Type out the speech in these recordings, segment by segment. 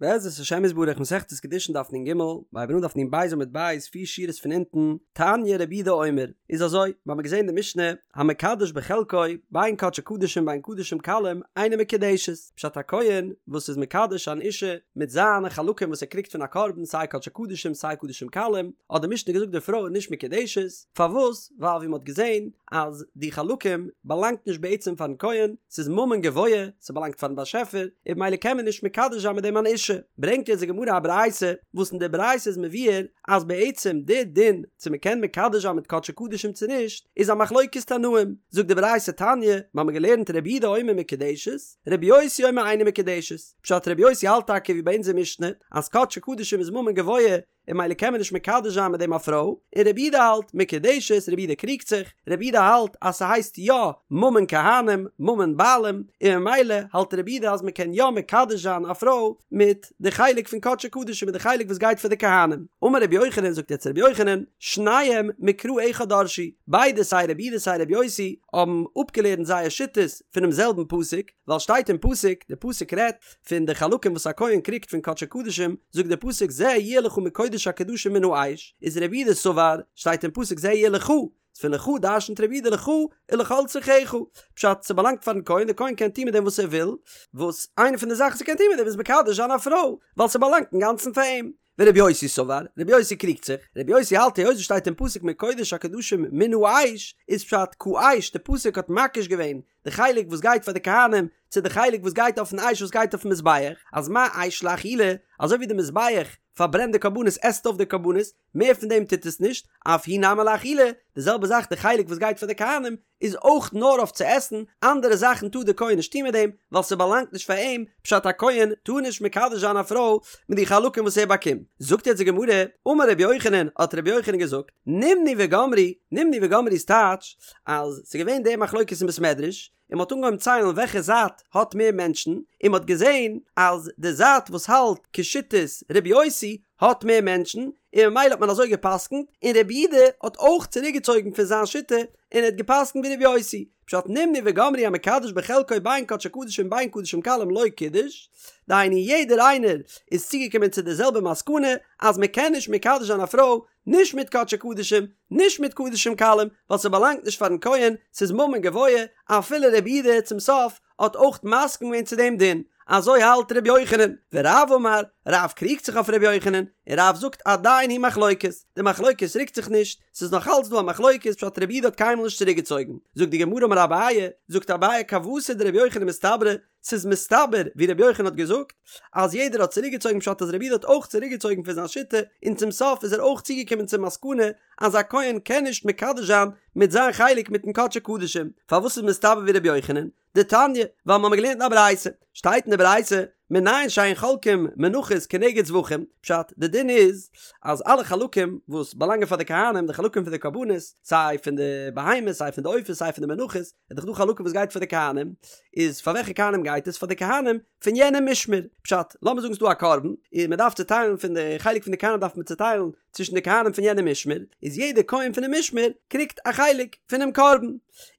בעזרת השם יתברך מסכת קידושין דף נ ג, מ'הייבט אן דף נ ב עמוד ב', פיר שורות פון אונטן, תניא רבי יהודה אומר, איז אזוי, מיר האבן געזען די משנה, המקדש בחלקו, בין קדשי קדשים בין קדשים קלים, אינה מקודשת, פשט א כהן וואס איז מקדש אן אישה מיט זיינע חלקים וואס ער קריגט פון א קרבן סיי קדשי קדשים סיי קדשים קלים, האט די משנה געזאגט די פרוי איז נישט מקודשת, פארוואס? ווייל ווי מען האט געזען אז די חלקים באלאנגט נישט בעצם פארן כהן, ס'איז ממון גבוה, ס'באלאנגט פארן באשעפער, און במילא קען מען נישט מקדש זיין מיט דעם אן אישה. ברענגט יעצט די גמרא א ברייתא, וואס אין די ברייתא איז מבואר אז בעצם די דין צו מען קען מקדש זיין מיט קדשי קדשים צו נישט, איז א מחלוקת תנאים. זאגט די ברייתא תניא, מיר האבן געלערנט רבי יהודה אומר מקודשת, רבי יוסי אומר אינה מקודשת. פשט רבי יוסי האלט טאקע ווי ביי אונזער משנה, אז קדשי קדשים איז ממון גבוה, און במילא קען מען נישט מקדש זיין מיט דעם א פרוי, און רבי יהודה האלט מקודשת, רבי יהודה קריגט זיך, רבי יהודה האלט אז ס'הייסט יא ממון כהנים, ממון בעלים, און ממילא האלט רבי יהודה אז מ'קען יא מקדש זיין א פרוי מיט די חלק פון קדשי קדשים מיט די חלק וואס גייט פאר די כהנים. אמר רבי יוחנן זאגט יעצט רבי יוחנן, שניהם מקרא אחד דרשו, ביידע סיי רבי יהודה סיי רבי יוסי האבן אפגעלערנט זייער שיטות פונעם זעלבן פסוק, ווייל שטייט אין פסוק, די פסוק רעדט פון די חלקים וואס א כהן קריגט פון קדשי קדשים, זאגט דער פסוק זה יהיה לך מקודש הקדשים מן האש, איז רבי יהודה סבר, שטייט אין פסוק זה יהיה לך, פון לך דרשנ'ט רבי יהודה לך ולכל צרכך, פשט, ס'באלאנגט פארן כהן, דער כהן קען טון מיט דעם וואס ער וויל, וואס איינע פון די זאכן וואס ער קען טון מיט דעם איז מקדש זיין א פרוי, ווייל ס'באלאנגט אינגאנצן פאר אים. ורבי יוסי סבר, רבי יוסי קריגט זיך, רבי יוסי האלט היות עס שטייט אין פסוק מקודש הקדשים מן האש, איז פשט כאש, די פסוק האט מקיש געווען די חלק וואס גייט פאר די כהנים צו די חלק וואס גייט אויפן אש וואס גייט אויפן מזבח, אז מה אש לאכילה, אזוי ווי די מזבח פארברענט די קרבנות עסט אויף די קרבנות, מער פון דעם טוט עס נישט, אף הוא נמי לאכילה, די זעלבע זאך די חלק וואס גייט פאר די כהנים, איז אויך נאר אויף צו עסן, אנדערע זאכן טאר די כהן נישט טון מיט דעם, ווייל ס'באלאנגט נישט פאר אים, פשט א כהן טאר נישט מקדש זיין א פרוי מיט די חלקים וואס ער באקומט. זאגט יעצט די גמרא, אמר רבי יוחנן, האט רבי יוחנן געזאגט, נמנו וגמרו, נמנו וגמרו איז טייטש, אז ס'איז געווען די מחלוקת אין בית מדרש, און מ'האט אנגעהויבן ציילן וועלכע זייט האט מער מענטשן, און מ'האט געזען אז די זייט וואס האלט כשיטת רבי יוסי האט מער מענטשן, און ממילא האט מען אזוי גע'פסק'נט, און רבי יהודה האט אויך צוריקגעצויגן פון זיין שיטה און ער האט גע'פסק'נט ווי רבי יוסי, פשט נמנו וגמרו המקדש בחלקו בין קדשי קדשים בין קדשים קלים לא קידש, דהיינו יעדער איינער איז צוגעקומען צו די זעלבע מסקנא אז מען קען נישט מקדש זיין א פרוי נישט מיט קדשי קדשים נישט מיט קדשים קלים ווייל ס'באלאנגט נישט פארן כהן ס'איז ממון גבוה, אפילו רבי יהודה צום סוף האט אויך מסכים געווען צו דעם דין, אזוי האלט ר' יוחנן, ורב אמר, רב קריגט זיך אויף ר' יוחנן, און רב זאגט עדיין היא מחלוקת, די מחלוקת רוקט זיך נישט, ס'איז נאך אלץ דא א מחלוקת פשט רבי יהודה האט קיינמאל נישט צוריק געצויגן, זאגט די גמרא אמר אביי, זאגט אביי כוותיה דרבי יוחנן מסתברא, ס'איז מסתבר ווי רבי יוחנן האט געזאגט, אז יעדער האט צוריק געצויגן פשט אז רבי יהודה האט אויך צוריק געצויגן פון זיין שיטה, און צום סוף איז ער אויך צוגעקומען צום מסקנא אז א כהן קען נישט מקדש זיין מיט זיין חלק מיטן קדשי קדשים, פארוואס איז מסתבר ווי רבי יוחנן? דתניא, ווייל מ'האמיר געלערנט אין א ברייתא, שטייט אין די ברייתא, מנין שאין חולקים מנחות כנגד זבחים, פשט, די דין איז אז אלע חלקים וואס באלאנגען פאר די כהנים, די חלקים פון די קרבנות, סיי פון די בהמות, סיי פון די עופות, סיי פון די מנחות, איז דאך דא חלקים וואס גייט פאר די כהנים, איז פאר וועלכע כהנים גייט עס? פאר די כהנים פון יענע משמר, פשט, לאמיר זאגן ס'דא א קרבן, און מ'דארף צוטיילן פון די חלק פון די כהנים דארף מען צוטיילן צווישן די כהנים פון יענע משמר, איז יעדער כהן פונעם משמר קריגט א חלק פונעם קרבן.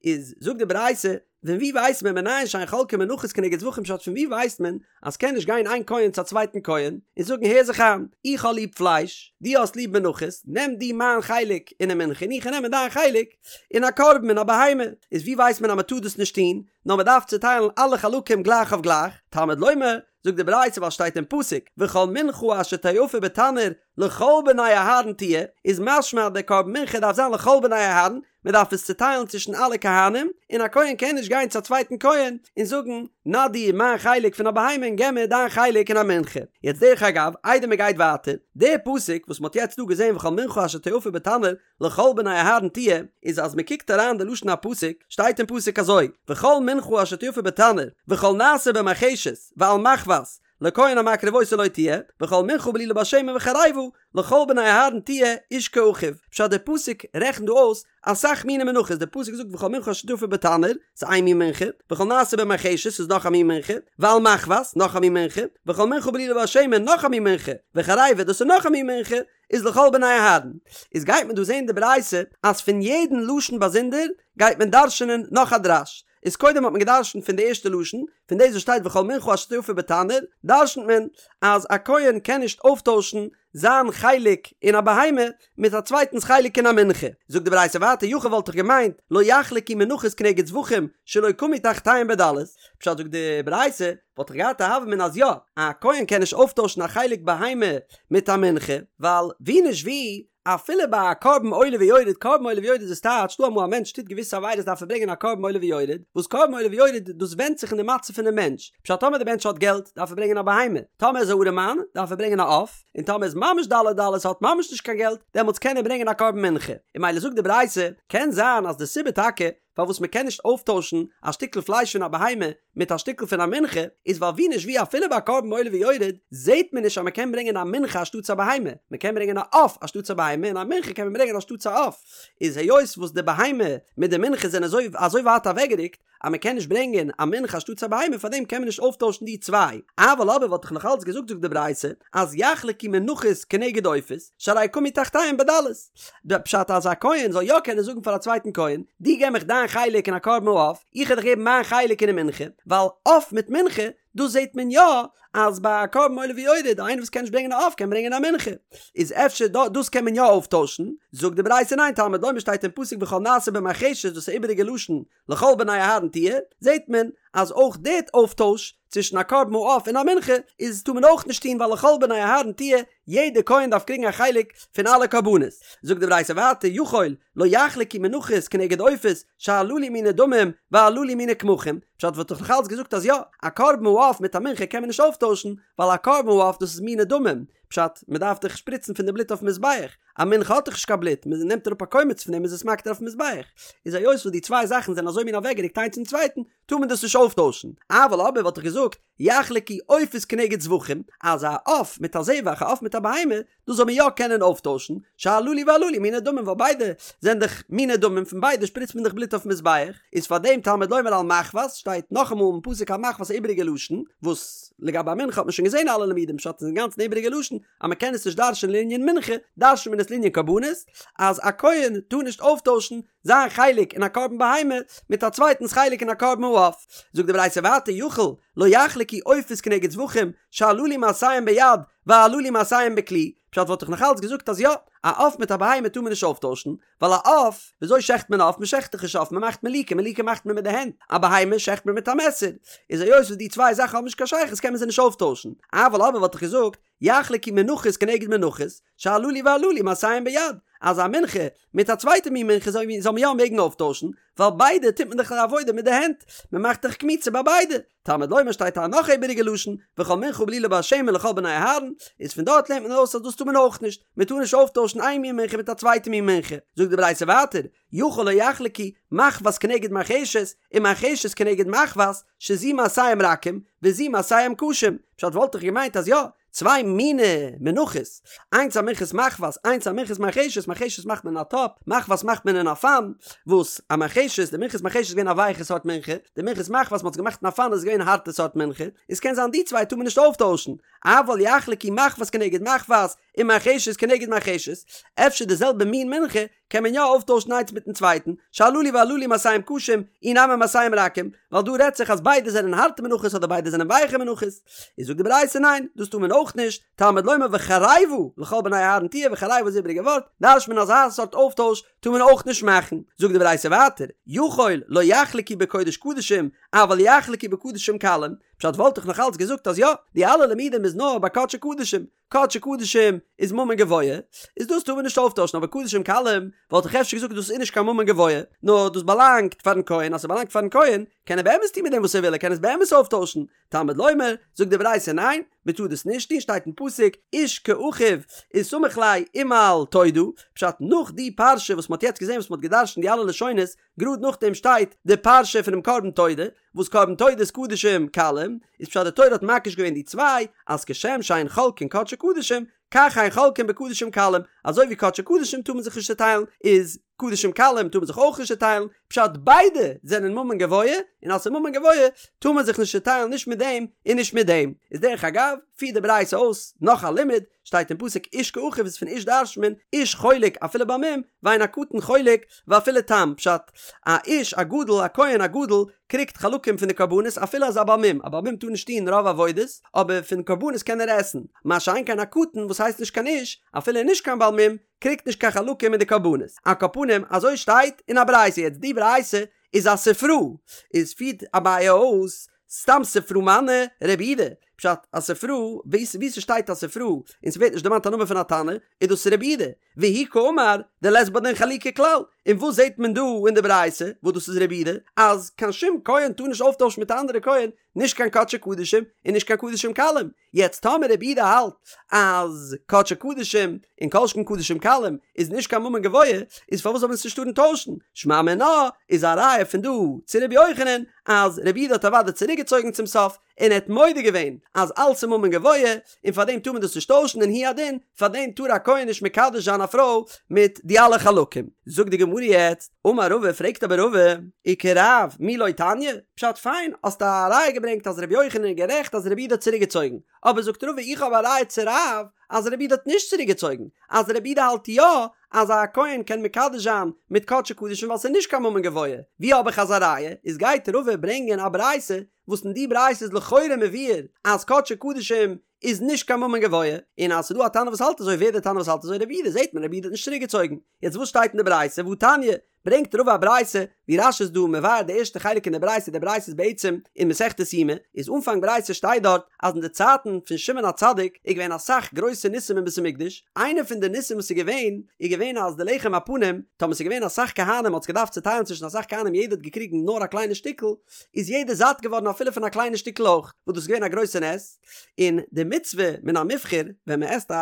איז זאגט די ברייתא, פון ווי ווייסט מען מנין שאין חולקין מנחות כנגד זבחים פשט פון ווי ווייסט מען אז קען נישט גיין איין כהן צו א צווייטן כהן און זאגן הער זיך איין איך האב ליב פלייש דו האסט ליב מנחות נעם דו מיין חלק אינעם מנחה און איך נעם דיין חלק אין א קרבן אין א בהמה איז ווי ווייסט מען אז מען טאר דאס נישט טון נאר מען דארף צוטיילן אלע חלקים גלייך אויף גלייך תלמוד לומר זאגט די ברייתא ווייל שטייט אין פסוק וכל מנחה אשר תאפה בתנור לכל בני אהרן תהיה, איז משמע אז דער קרבן מנחה דארף זיין לכל בני אהרן, מען דארף עס צוטיילן צווישן אלע כהנים, און א כהן קען נישט גיין צו א צווייטן כהן און זאגן נא דיר מיין חלק פון א בהמה און געב מיר דיין חלק אין א מנחה. יעצט דרך אגב, איידער מען גייט ווייטער, דער פסוק וואס מען האט יעצט דא געזען וכל מנחה אשר תאפה בתנור לכל בני אהרן תהיה, איז אז מען קוקט אריין די לשון הפסוק, שטייט אין פסוק אזוי, וכל מנחה אשר תאפה בתנור, וכל נעשה במרחשת, ועל מחבת, לכהן המקריב אותה לו תהיה, וכל מנחה בלולה בשמן וחרבה, לכל בני אהרן תהיה, איש כאחיו. פשט דער פסוק רעכנט דא אויס אסאך מיני מנחות, דער פסוק זאגט וכל מנחה אשר תאפה בתנור, ס'איז איין מין מנחה, וכל נעשה במרחשת ס'איז נאך א מין מנחה, ועל מחבת, נאך א מין מנחה, וכל מנחה בלולה בשמן, נאך א מין מנחה, וחרבה, דאס איז נאך א מין מנחה, איז לכל בני אהרן. איז גייט מען דא זעהן די ברייתא אז פון יעדן לשון באזונדער גייט מען דרש'נען נאך א דרש. איז קודם האט מען גע'דרש'נט פון די ערשטע לשון, פון דאס וואס שטייט וכל מנחה אשר תאפה בתנור, דרש'נט מען אז א כהן קען נישט אויפטוישן זיין חלק אין א בהמה מיט א צווייטנס חלק אין א מנחה. זאגט די ברייתא ווייטער יכול וואלט איך געמיינט לא יחלקו מנחות כנגד זבחים שלא קמו תחתיהם בדלות, פשט זאגט די ברייתא וואלט איך געהאט א הוה אמינא אז יא, א כהן קען נישט אויפטוישן א חלק בהמה מיט א מנחה, ווייל ווי נישט ווי אפילו ביי א קרבן עולה ויורד, קרבן עולה ויורד איז טייטש דא אמאל א מענטש טוט געוויסע עבירות דארף ער ברענגען א קרבן עולה ויורד, וואס קרבן עולה ויורד דאס ווענדט זיך אין די מצב פונעם מענטש, פשט טאמער די מענטש האט געלט דארף ער ברענגען א בהמה, טאמער איז א ארעמאן דארף ער ברענגען א עוף, און טאמער איז ממש דלי דלות האט ממש נישט קיין געלט דעמאלטס קען ער ברענגען א קרבן מנחה, און ממילא זאגט די ברייתא, קען זיין אז די סיבה טאקע פארוואס מען קען נישט אויפטוישן א שטיקל פלייש פון א בהמה מיט א שטיקל פון א מנחה, איז ווייל ווי נישט ווי אפילו ביי א קרבן עולה ויורד זעהט מען נישט אז מען קען ברענגען א מנחה אנשטאטס א בהמה, מען קען ברענגען א עוף אנשטאטס א בהמה און א מנחה קען מען ברענגען אנשטאטס א עוף, איז היות וואס די בהמה מיט די מנחה זענען אזוי אזוי ווייט אוועקגערוקט אז מען קען נישט ברענגען א מנחה אנשטאטס א בהמה פארדעם קען מען נישט אויפטוישן די צוויי, אבל אבער וואלט איך נאך אלץ געזאגט זאגט די ברייתא אז יחלקו מנחות כנגד עופות שהרי קמו תחתיהם בדלות. די פשט אז א כהן זאל יא קענען זאגן פאר א צווייטן כהן, דו געב מיך דיין חלק אין א קרבן העוף, איך וועל דיך געבן מיין חלק אינעם מנחה, ווייל עוף מיט מנחה, דאס זעט מען יא אז ביי א קרבן עולה ויורד, איינער וואס קען נישט ברענגען א עוף קען ברענגען א מנחה, איז אפשר דאס קען מען יא אויפטוישן, זאגט די ברייתא ניין תלמוד לומר שטייט אין פסוק וכל נעשה במרחשת דאס איז איבעריגע לשון לכל בני אהרן תהיה, זעט מען אז אויך די אויפטויש צווישן א קרבן העוף און א מנחה איז טאר מען אויך נישט טון ווייל לכל בני אהרן תהיה, יעדע כהן דארף קריגן א חלק פון אלע קרבנות. זאגט די ברייתא ווייטער יכול לא יחלקו מנחות כנגד עופות שהללו מיני דמים והללו מיני קמחים, פשט וואלט איך נאך אלץ געזאגט אז יא, א קרבן העוף מיט א מנחה קען מען נישט אויפטוישן, ווייל א קרבן העוף דאס איז מיני דמים, פשט, מען דארף דאך שפריצן פון די בלוט אויפן מזבח, א מנחה האט דאך נישט קיין בלוט, מען נעמט אראפ א קומץ פון דעם איז עס מקטיר אויפן מזבח, איז היות וואס די צוויי זאכן זענען אזוי מין אוועקגערוקט איינס צום צווייטן, טאר מען דאס נישט אויפטוישן, אבל אבער וואלט איך געזאגט, יחלקו עופות כנגד זבחים, אז א עוף מיט א זבח, א עוף מיט א בהמה, דאס זאל מען יא קענען אויפטוישן, שהללו והללו מיני דמים ווייל ביידע זענען דאך מיני דמים פון ביידע שפריצט מען דאך בלוט אויפן מזבח, איז פאר דעם תלמוד לומר על מחבת שטייט נאכאמאל אין פסוק על מחבת א איבעריגע לשון, וואס לגבי א מנחה האט מען שוין געזען אלע לימודים פשט איז אינגאנצן איבעריגע לשון אז מען קען עס נישט דרש'ען לענין מנחה, דרש'נט מען עס לענין קרבנות, אז א כהן טאר נישט אויפטוישן זיין חלק אין א קרבן בהמה מיט א צווייטנס חלק אין א קרבן העוף. זאגט די ברייתא ווייטער יכול לא יחלקו עופות כנגד זבחים שהללו מעשיהם ביד והללו מעשיהם בכלי, פשט וואלט איך נאך אלץ געזאגט אז יא, א עוף מיט א בהמה טאר מען נישט אויפטוישן, ווייל א עוף, וויאזוי שעכט מען א עוף? מען שעכט דאך נישט עוף, מען מאכט מליקה, מליקה מאכט מען מיט די הענט, א בהמה שעכט מען מיט א מעסער, איז היות וואס די צוויי זאכן האבן נישט קיין שייכות קען מען זיי נישט אויפטוישן, אבל אבער וואלט איך געזאגט, יחלקו מנחות כנגד מנחות, שהללו והללו מעשיהם ביד, אז א מנחה מיט א צווייטע מין מנחה זאל מען יא מעגן אויפטוישן, ווייל ביידע טוט מען דאך די עבודה מיט די הענט, מען מאכט דאך קמיצה ביי ביידע, תלמוד לומר שטייט א נאך איבעריגע לשון, וכל מנחה בלולה בשמן לכל בני אהרן, איז פון דארט לערנט מען ארויס אז דאס טאר מען אויך נישט, מען טאר נישט אויפטוישן איין מין מנחה מיט א צווייטע מין מנחה, זאגט די ברייתא ווייטער, יכול לא יחלקו מחבת כנגד מרחשת, ומרחשת כנגד מחבת, שזו מעשיהם רכים, וזו מעשיהם קשים, פשט וואלט איך געמיינט אז יא, צוויי מיני מנחות, איינס א מנחת מחבת, איינס א מנחת מרחשת, מרחשת מאכט מען אין א טאפ, מחבת מאכט מען אין א פאן, וואס א מרחשת, די מנחת מרחשת איז געווען א ווייכע סארט מנחה, די מנחת מחבת מ'האט עס געמאכט אין א פאן איז געווען א הארטע סארט מנחה, איז קען זיין די צוויי טאר מען נישט אויפטוישן, אבל יחלקו מחבת כנגד מחבת, ומרחשת כנגד מרחשת, אפשר די זעלבע מין מנחה קען מען יא אויפטוישן איינס מיטן צווייטן, שהללו והללו מעשיהם קשים, אי נמי מעשיהם רכים, ווייל דא רעדט זיך אז ביידע זענען הארטע מנחות אדער ביידע זענען ווייכע מנחות. איז זאגט די ברייתא ניין, דאס טאר מען אויך נישט, תלמוד לומר וחרבה לכל בני אהרן תהיה וחרבה איז איבעריגע ווארט, דרש'ט מען אז אזא סארט אויפטויש טאר מען אויך נישט מאכן. זאגט די ברייתא ווייטער, יכול לא יחלקו בקודש קדשים, אבל יחלקו בקדשים קלים, פשט וואלט איך נאך אלץ געזאגט אז יא, די אלע לימודים איז נאר ביי קדשי קדשים, קדשי קדשים איז ממון גבוה, איז דאס טאר מען נישט אויפטוישן, אבער קדשים קלים וואלט איך אפשר געזאגט דאס איז נישט קיין ממון גבוה, נאר דאס באלאנגט פארן כהן, אז ס'באלאנגט פארן כהן קען ער באמת טון מיט דעם וואס ער וויל, ער קען עס באמת אויפטוישן, תלמוד לומר, זאגט די ברייתא ניין, מען טאר דאס נישט טון, שטייט אין פסוק, איש כאחיו איז סמיך ליה ומעל תודה, פשט נאך די פרשה וואס מען האט יעצט געזען וואס מען האט געדרשנט די אלע לשונות, גראד נאכדעם שטייט די פרשה פונעם קרבן תודה, וואס קרבן תודה איז קדשים קלים, איז פשט די תורה האט מקיש געווען די צוויי, אז כשם שאין חולקין קדשי קדשים, כך אין חולקין בקדשים קלים, אזוי ווי קדשי קדשים טאר מען זיך נישט צעטיילן, איז קדשים קלים טאר מען זיך אויך נישט צעטיילן, פשט ביידע זענען ממון גבוה, און אז ס'איז ממון גבוה טאר מען זיך נישט צעטיילן נישט מיט דעם און נישט מיט דעם. איז דרך אגב, פירט די ברייתא אויס נאך א לימוד, שטייט אין פסוק איש כאחיו איז פון איש דרש'נט מען איש חולק אפילו בעל מום, ואין הקטן חולק ואפילו תם, פשט, א איש א גדול א כהן א גדול קריגט חלקים פון די קרבנות אפילו אז א בעל מום, א בעל מום טאר נישט טון רוב עבודות, אבער פון קרבנות קען ער עסן, מה שאין כן א קטן וואס הייסט נישט קיין איש, אפילו נישט קיין בעל מום, קריגט נישט קיין חלקים אין די קרבנות. על כל פנים, אזוי שטייט אין א ברייתא, יעצט די ברייתא איז א ספרא, איז פירט אביי אויס, סתם ספרא מני רבי יהודה, פשט, א ספרא, וואו ס'שטייט א ספרא און ס'ווערט נישט דערמאנט א נאמען פון א תנא, איז דאס רבי יהודה, והוא קאמר דלית בה דין חלוקה כלל, און וואס זעט מען דא אין די ברייתא, וואס דאס איז רבי יהודה, אז קיין שום כהן טאר נישט אויפטוישן מיט א אנדערע כהן, נישט קיין קדשי קדשים און נישט קיין קדשים קלים, יעצט טאמער רבי יהודה האלט אז קדשי קדשים און כל שכן קדשים קלים איז נישט קיין ממון גבוה, איז פארוואס זאל מען עס נישט טארן טוישן? שמע מינה איז א ראיה פון דא צו רבי יוחנן אז רבי יהודה האט אוודאי צוריקגעצויגן צום סוף און ער האט מודה געווען אז אלס איז ממון גבוה און פאר דעם טאר מען דאס נישט טוישן און הוא הדין פאר דעם טאר א כהן נישט מקדש זיין א פרוי מיט די אלע חלקים. זאגט די גמרא יעצט, אמר רבא פרעגט אבער רבא, וכרב מי לא תניא? פשט פיין האסט א ראיה געברענגט אז רבי יוחנן איז גערעכט אז רבי יהודה האט צוריק געצויגן, אבער זאגט רבא איך האב א ראיה צו רב אז רבי יהודה האט נישט צוריק געצויגן, אז רבי יהודה האלט יא אז א כהן קען מקדש זיין מיט קדשי קדשים ווייל ס'איז נישט קיין ממון גבוה, ווי האב איך אזא ראיה? איז גייט רבא ברענגען א ברייתא וואס אין די ברייתא איז לכאורה מבואר אז קדשי קדשים איז נישט קיין ממון גבוה, און אז ס'איז דא א תנא וואס האלט אזוי ווער דער תנא וואס האלט אזוי רבי יהודה זעט מען רבי יהודה האט נישט צוריק געצויגן, יעצט וואס שטייט אין די ברייתא והתניא, ברענגט רבא א ברייתא ווי רש"י איז דא מבאר די ערשטע חלק אין די ברייתא די ברייתא איז בעצם אין מסכת יומא איז אנפאנג ברייתא שטייט דארט אז אין די צייטן פון שמעון הצדיק איז געווען אסאך גרויסע ניסים אין בית המקדש איינע פון די ניסים וואס איז געווען איז געווען אז די לחם הפנים טאמער ס'איז געווען אסאך כהנים מ'האט עס געדארפט צוטיילן צווישן אסאך כהנים יעדער האט געקריגן נאר א קליינע שטיקל איז יעדער זאט געווארן אפילו פון א קליינע שטיקל אויך וואס דאס איז געווען א גרויסע נס און די מצוה מן המובחר ווען מען עסט א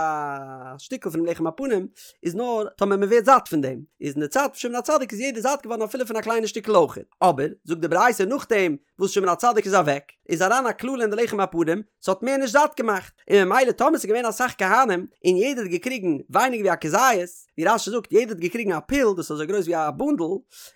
שטיקל פונעם לחם הפנים איז נאר טאמער מען ווערט זאט פון דעם, איז אין די צייט פון שמעון הצדיק איז יעדער זאט געווארן אפילו פון א קליינע שטיקל אויך, אבער זאגט די ברייתא נאכדעם וואס שמעון הצדיק איז אוועק איז אריין א קללה אין די לחם הפנים ס'האט מער נישט זאט געמאכט, און ממילא טאמער ס'איז געווען אסאך כהנים און יעדער האט געקריגן ווייניגער ווי א כזית, ווי רש"י זאגט יעדער האט געקריגן א פול דאס איז אזוי גרויס ווי א בונדל,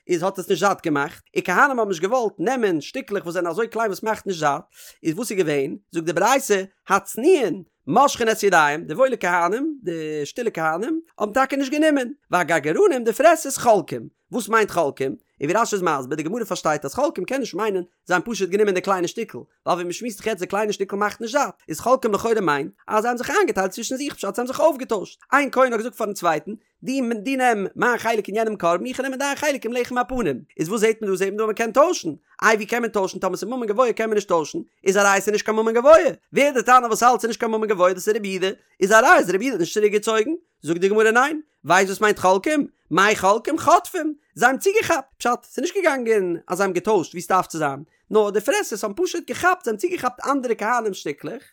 איז האט עס נישט זאט געמאכט, און כהנים האבן נישט געוואלט נעמען שטיקלעך וואס זענען אזוי קליין וואס מאכט נישט זאט, איז וואס איז געווען? זאגט די ברייתא, הצנועין מושכין את ידיהם, די וואוילע כהנים, די שטילע כהנים, האבן טאקע נישט גענומען, והגרגרנים, די פרעסערס, חולקים. וואס מיינט חולקים? און ווי רש"י איז מסביר, די גמרא פארשטייט אז חולקים קען נישט מיינען זיי האבן פשוט גענומען די קליינע שטיקל, ווייל ווי מ'שמועסט זיך יעצט די קליינע שטיקל מאכט נישט זאט, איז חולקים לכאורה מיינט אז זיי האבן זיך איינגעטיילט צווישן זיך פשט זיי האבן זיך אויפגעטוישט, איין כהן האט געזאגט פארן צווייטן, דו דו נעם מיין חלק אין יענעם קרבן איך נעם דיין חלק אין לחם הפנים, איז וואס זעט מען דא? זעט מען דא אז מען קען טוישן, איי ווי קען מען טוישן טאמער ס'איז ממון גבוה קען מען נישט טוישן, איז א ראיה ס'איז נישט קיין ממון גבוה, ווער די תנא וואס האלט ס'איז נישט קיין ממון גבוה דאס איז רבי יהודה, איז א ראיה אז רבי יהודה האט נישט צוריק געצויגן, זאגט די גמרא ניין, ווייסט וואס מיינט חולקים? מאי חולקים? חוטפים, זיי האבן צוגעכאפט, פשט, ס'איז נישט געגאנגען אז זיי האבן געטוישט ווי ס'דארף צו זיין, נאר די פרעסערס האבן פשוט געכאפט, זיי האבן צוגעכאפט אנדערע כהנים שטיקלעך,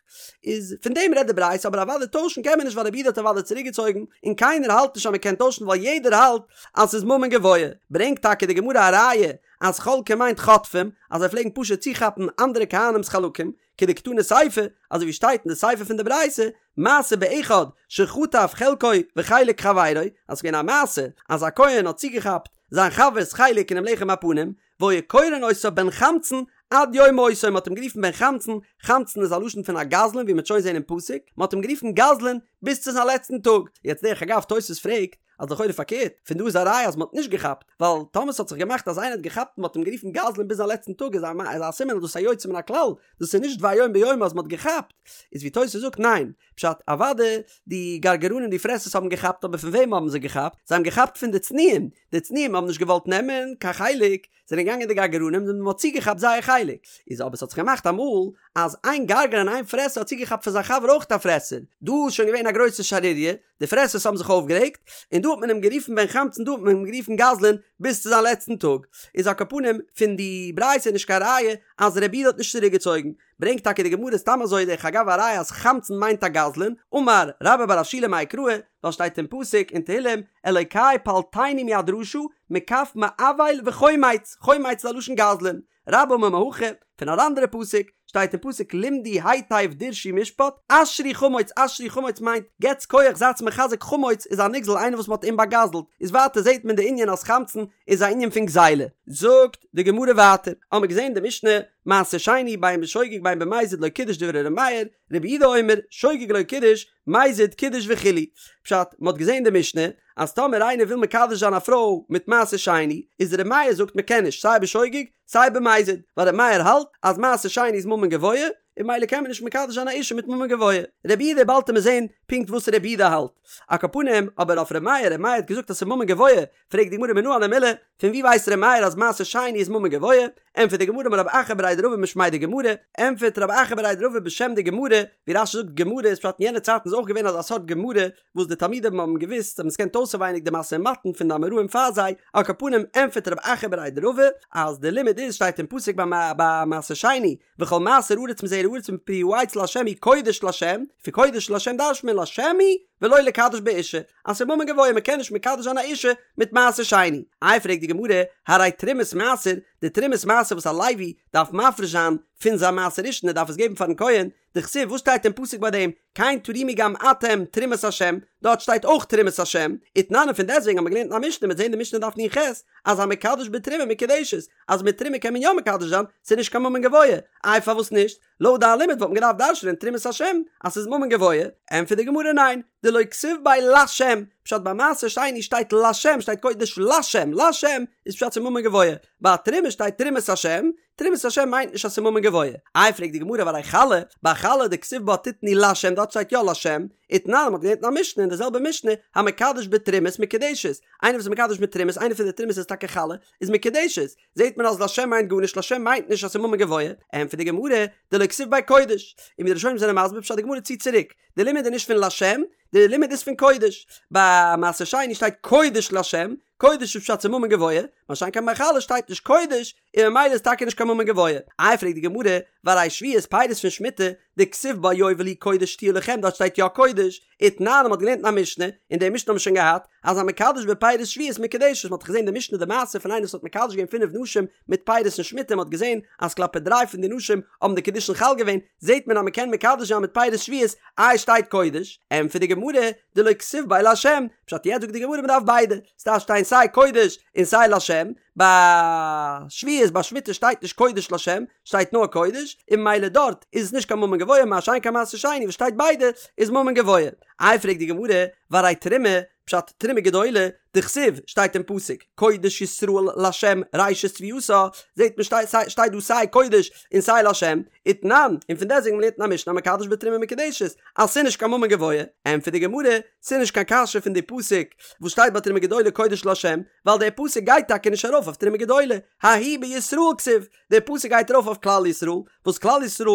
איז פון דעם רעדט די ברייתא, אבער אוודאי טוישן קען מען נישט ווייל רבי יהודה האט אוודאי צוריקגעצויגן, און קיינער האלט נישט אז מען קען טוישן ווייל יעדער האלט אז ס'איז ממון גבוה, ברענגט טאקע די גמרא א ראיה אז חולקים מיינט חוטפים, אז זיי פלעגן פשוט צוכאפן אנדערע כהנים'ס חלקים, כדקתני סיפא, אזוי ווי שטייט אין די סיפא פון די ברייתא, מעשה באחד שחטף חלקו וחלק חברו, אז ס'איז געווען א מעשה אז א כהן האט צוגעכאפט זיין חבר'ס חלק אינעם לחם הפנים, והיו קורין אותו בן חמצן עד יום מותו, מ'האט אים גערופן בן חמצן, חמצן איז א לשון פון א גזלן ווי מ'וועט שוין זען אין פסוק, מ'האט אים גערופן גזלן ביז צו זיין לעצטן טאג, יעצט דרך אגב תוס' פרעגט אז לכאורה פארקערט, פון דא איז א ראיה אז מ'האט נישט געכאפט, ווייל טאמער ס'האט זיך געמאכט אז איינער האט געכאפט און מ'האט אים גערופן גזלן ביז זיין לעצטן טאג איז א סימן אז דאס איז א יוצא מן הכלל, דאס איז נישט דבר יום ביומו אז מ'האט געכאפט, איז ווי תוס' זאגט ניין, פשט אוואדע די גרגרנים די פרעסערס האבן געכאפט אבער פון וועם האבן זיי געכאפט? זיי האבן געכאפט פון די צנועים, די צנועים האבן נישט געוואלט נעמען קיין חלק, זענען געגאנגען די גרגרנים און מען האט צוגעכאפט זייער חלק, איז אבער ס'האט זיך געמאכט אמאל אז איין גרגרן איין פרעסער האט צוגעכאפט פון זיין חבר אויך א פרעסער, דא איז שוין געווען א גרויסע שערוריה, די פרעסערס האבן זיך אויפגערעגט, און דא האט מען אים גערופן בן חמצן דא האט מען אים גערופן גזלן ביז צו זיין לעצטן טאג, איז על כל פנים פון די ברייתא נישט קיין ראיה אז רבי יהודה האט נישט צוריקגעצויגן, ברענגט טאקע די גמרא סתם אזוי דרך אגב א ראיה אז חמצן מיינט א גזלן, אמר רבה בר רב שילא מאי קרא, ווייל שטייט אין פסוק אין תהילים אלוקי פלטני מיד רשע מכף מעול וחומץ, חומץ איז א לשון גזלן, רבה אמר מהכא, פון אן אנדערע פסוק, שטייט אין פסוק למדו היטב דרשו משפט, אשרו חמוץ אשרו חמוץ מיינט געטס כח זייטס מחזק חמוץ איז א נגזל איינער וואס מ'האט אים באגזלט, איז ווייטער זעט מען די ענין אז חמצן איז א ענין פון גזילה. זאגט די גמרא ווייטער, האמער געזען די משנה, מעשר שני בין בשוגג בין במזיד לא קידש דברי ר' מאיר, רבי יהודה אומר, שוגג לא קידש, מזיד קידש וכו'. פשט, מ'האט געזען די משנה, אז טאמער איינער וויל מקדש זיין א פרוי מיט מעשר שני, איז ר' מאיר זאגט מ'קען נישט סיי בשוגג סיי במזיד, ווייל ר' מאיר האלט אז מעשר שני איז ממון גבוה, און ממילא קען מען נישט מקדש זיין א אישה מיט ממון גבוה. רבי יהודה באלד עמיר זען פונקט וואס רבי יהודה האלט. על כל פנים, אבער אויף ר' מאיר, ר' מאיר האט געזאגט אז ס'איז ממון גבוה, פרעגט די גמרא מנא הני מילי, פון ווי ווייסט ר' מאיר אז מעשר שני איז ממון גבוה? ענטפערט די גמרא אמר רב אחא בריה דרבא משמיה דגמרא, ענטפערט רב אחא בריה דרבא בשם די גמרא, ווי רש"י זאגט גמרא איז פשט אין יענע צייטן איז אויך געווען אזא סארט גמרא וואס די תלמידים האבן געוואוסט, זיי האבן עס געקענט אויסעווייניג די משא ומתן פון די אמוראים פאר זיי, על כל פנים ענטפערט רב אחא בריה דרבא אז די לימוד איז שטייט אין פסוק ביי מעשר שני וכל מעשר הארץ מזרע הארץ מפרי העץ לה' הוא קודש לה', פון קודש לה' דרש'נט מען לה' הוא ולא לקדש בו אשה, אז ס'איז ממון גבוה מ'קען נישט מקדש זיין א אישה מיט מעשר שני. איי פרעגט די גמרא, הרי תרומת מעשר, די תרומת מעשר וואס א לוי דארף מפריש זיין פון זיין מעשר ראשון ער דארף עס געבן פארן כהן, דכתיב וואס שטייט אין פסוק ביי דעם, כן תרימו גם אתם תרומת השם, דארט שטייט אויך תרומת השם, ותנן און פון דעסטוועגן האט מען געלערנט אין א משנה מ'וועט זען די משנה דף נ"ח, אז המקדש בתרומה מקודשת, אז מיט תרומה קען מען יא מקדש זיין, ס'איז נישט קיין ממון גבוה, איי פארוואס נישט? לויט דיין לימוד וואלט מען געדארפט דרש'נען תרומת השם אז ס'איז ממון גבוה, ענטפערט די גמרא ניין, דלא כתיב ביה לשם, פשט ביי מעשר שני שטייט לשם שטייט קודש לשם, לשם איז פשט ס'איז ממון גבוה, ביי תרומה שטייט תרומת השם, תרומת השם מיינט נישט אז ס'איז ממון גבוה, איי פרעגט די גמרא והרי חלה, ביי חלה דכתיב בה תתנו לשם דארט שטייט יא לשם, ותנן מ'האט געלערנט אין א משנה אין די זעלבע משנה, המקדש בתרומות מקודשת, איינער וואס איז מקדש מיט תרומות איינע פון די תרומות איז טאקע חלה, איז מקודשת, זעט מען אז לשם מיינט גארנישט לשם מיינט נישט אז ס'איז ממון גבוה, ענטפערט די גמרא, דלא כתיב ביה קודש, און ווי די ראשונים זענען מסביר פשט די גמרא ציט צוריק, די לימוד איז נישט פון לשם, די לימוד איז פון קודש, ביי מעשר שני שטייט קודש לשם, קודש איז פשט ס'איז ממון גבוה, מה שאין כן ביי חלה שטייט נישט קודש, און ממילא איז טאקע נישט קיין ממון גבוה. איי פרעגט די גמרא, והרי שביעית פירות פון שמיטה, דכתיב בה יובל היא קודש תהיה לכם דארט שטייט יא קודש, ותנן מ'האט געלערנט אין א משנה, און די משנה האבן מיר שוין געהאט, אז המקדש בפירות שביעית מקודשת, מ'האט דאך געזען די משנה די מעשה פון איינער וואס האט מקדש געווען פינף נשים מיט פירות אין שמיטה, מ'האט געזען אז כלפי דריי פון די נשים האבן די קידושין חל געווען, זעט מען אז מ'קען מקדש זיין מיט פירות שביעית, איי שטייט קודש? ענטפערט די גמרא, דלא כתיב ביה לשם, פשט יעצט זאגט די גמרא מ'דארף ביידע, ס'דארף שטיין סיי קודש און סיי לשם, ביי שביעית ביי שמיטה שטייט נישט קודש לשם, שטייט נאר קודש, און ממילא דארט איז עס נישט קיין ממון גבוה, מה שאין כן מעשר שני וואס שטייט ביידע איז ממון גבוה. איי פרעגט די גמרא, והרי תרומה, פשט תרומה גדולה, דכתיב, שטייט אין פסוק, קודש ישראל לשם ראשית תבואתה, זעט מען שטייט דא סיי קודש און סיי לשם, ותנן, און פון דעסטוועגן מ'לערנט אין א משנה המקדש בתרומה מקודשת, אז ס'איז נישט קיין ממון גבוה, ענטפערט די גמרא, ס'איז נישט קיין קשיא פון די פסוק וואס שטייט ביי תרומה גדולה קודש לשם, ווייל דער פסוק גייט טאקע נישט ארויף אויף תרומה גדולה, ההוא בישראל כתיב, דער פסוק גייט ארויף אויף כלל ישראל, וואס כלל ישראל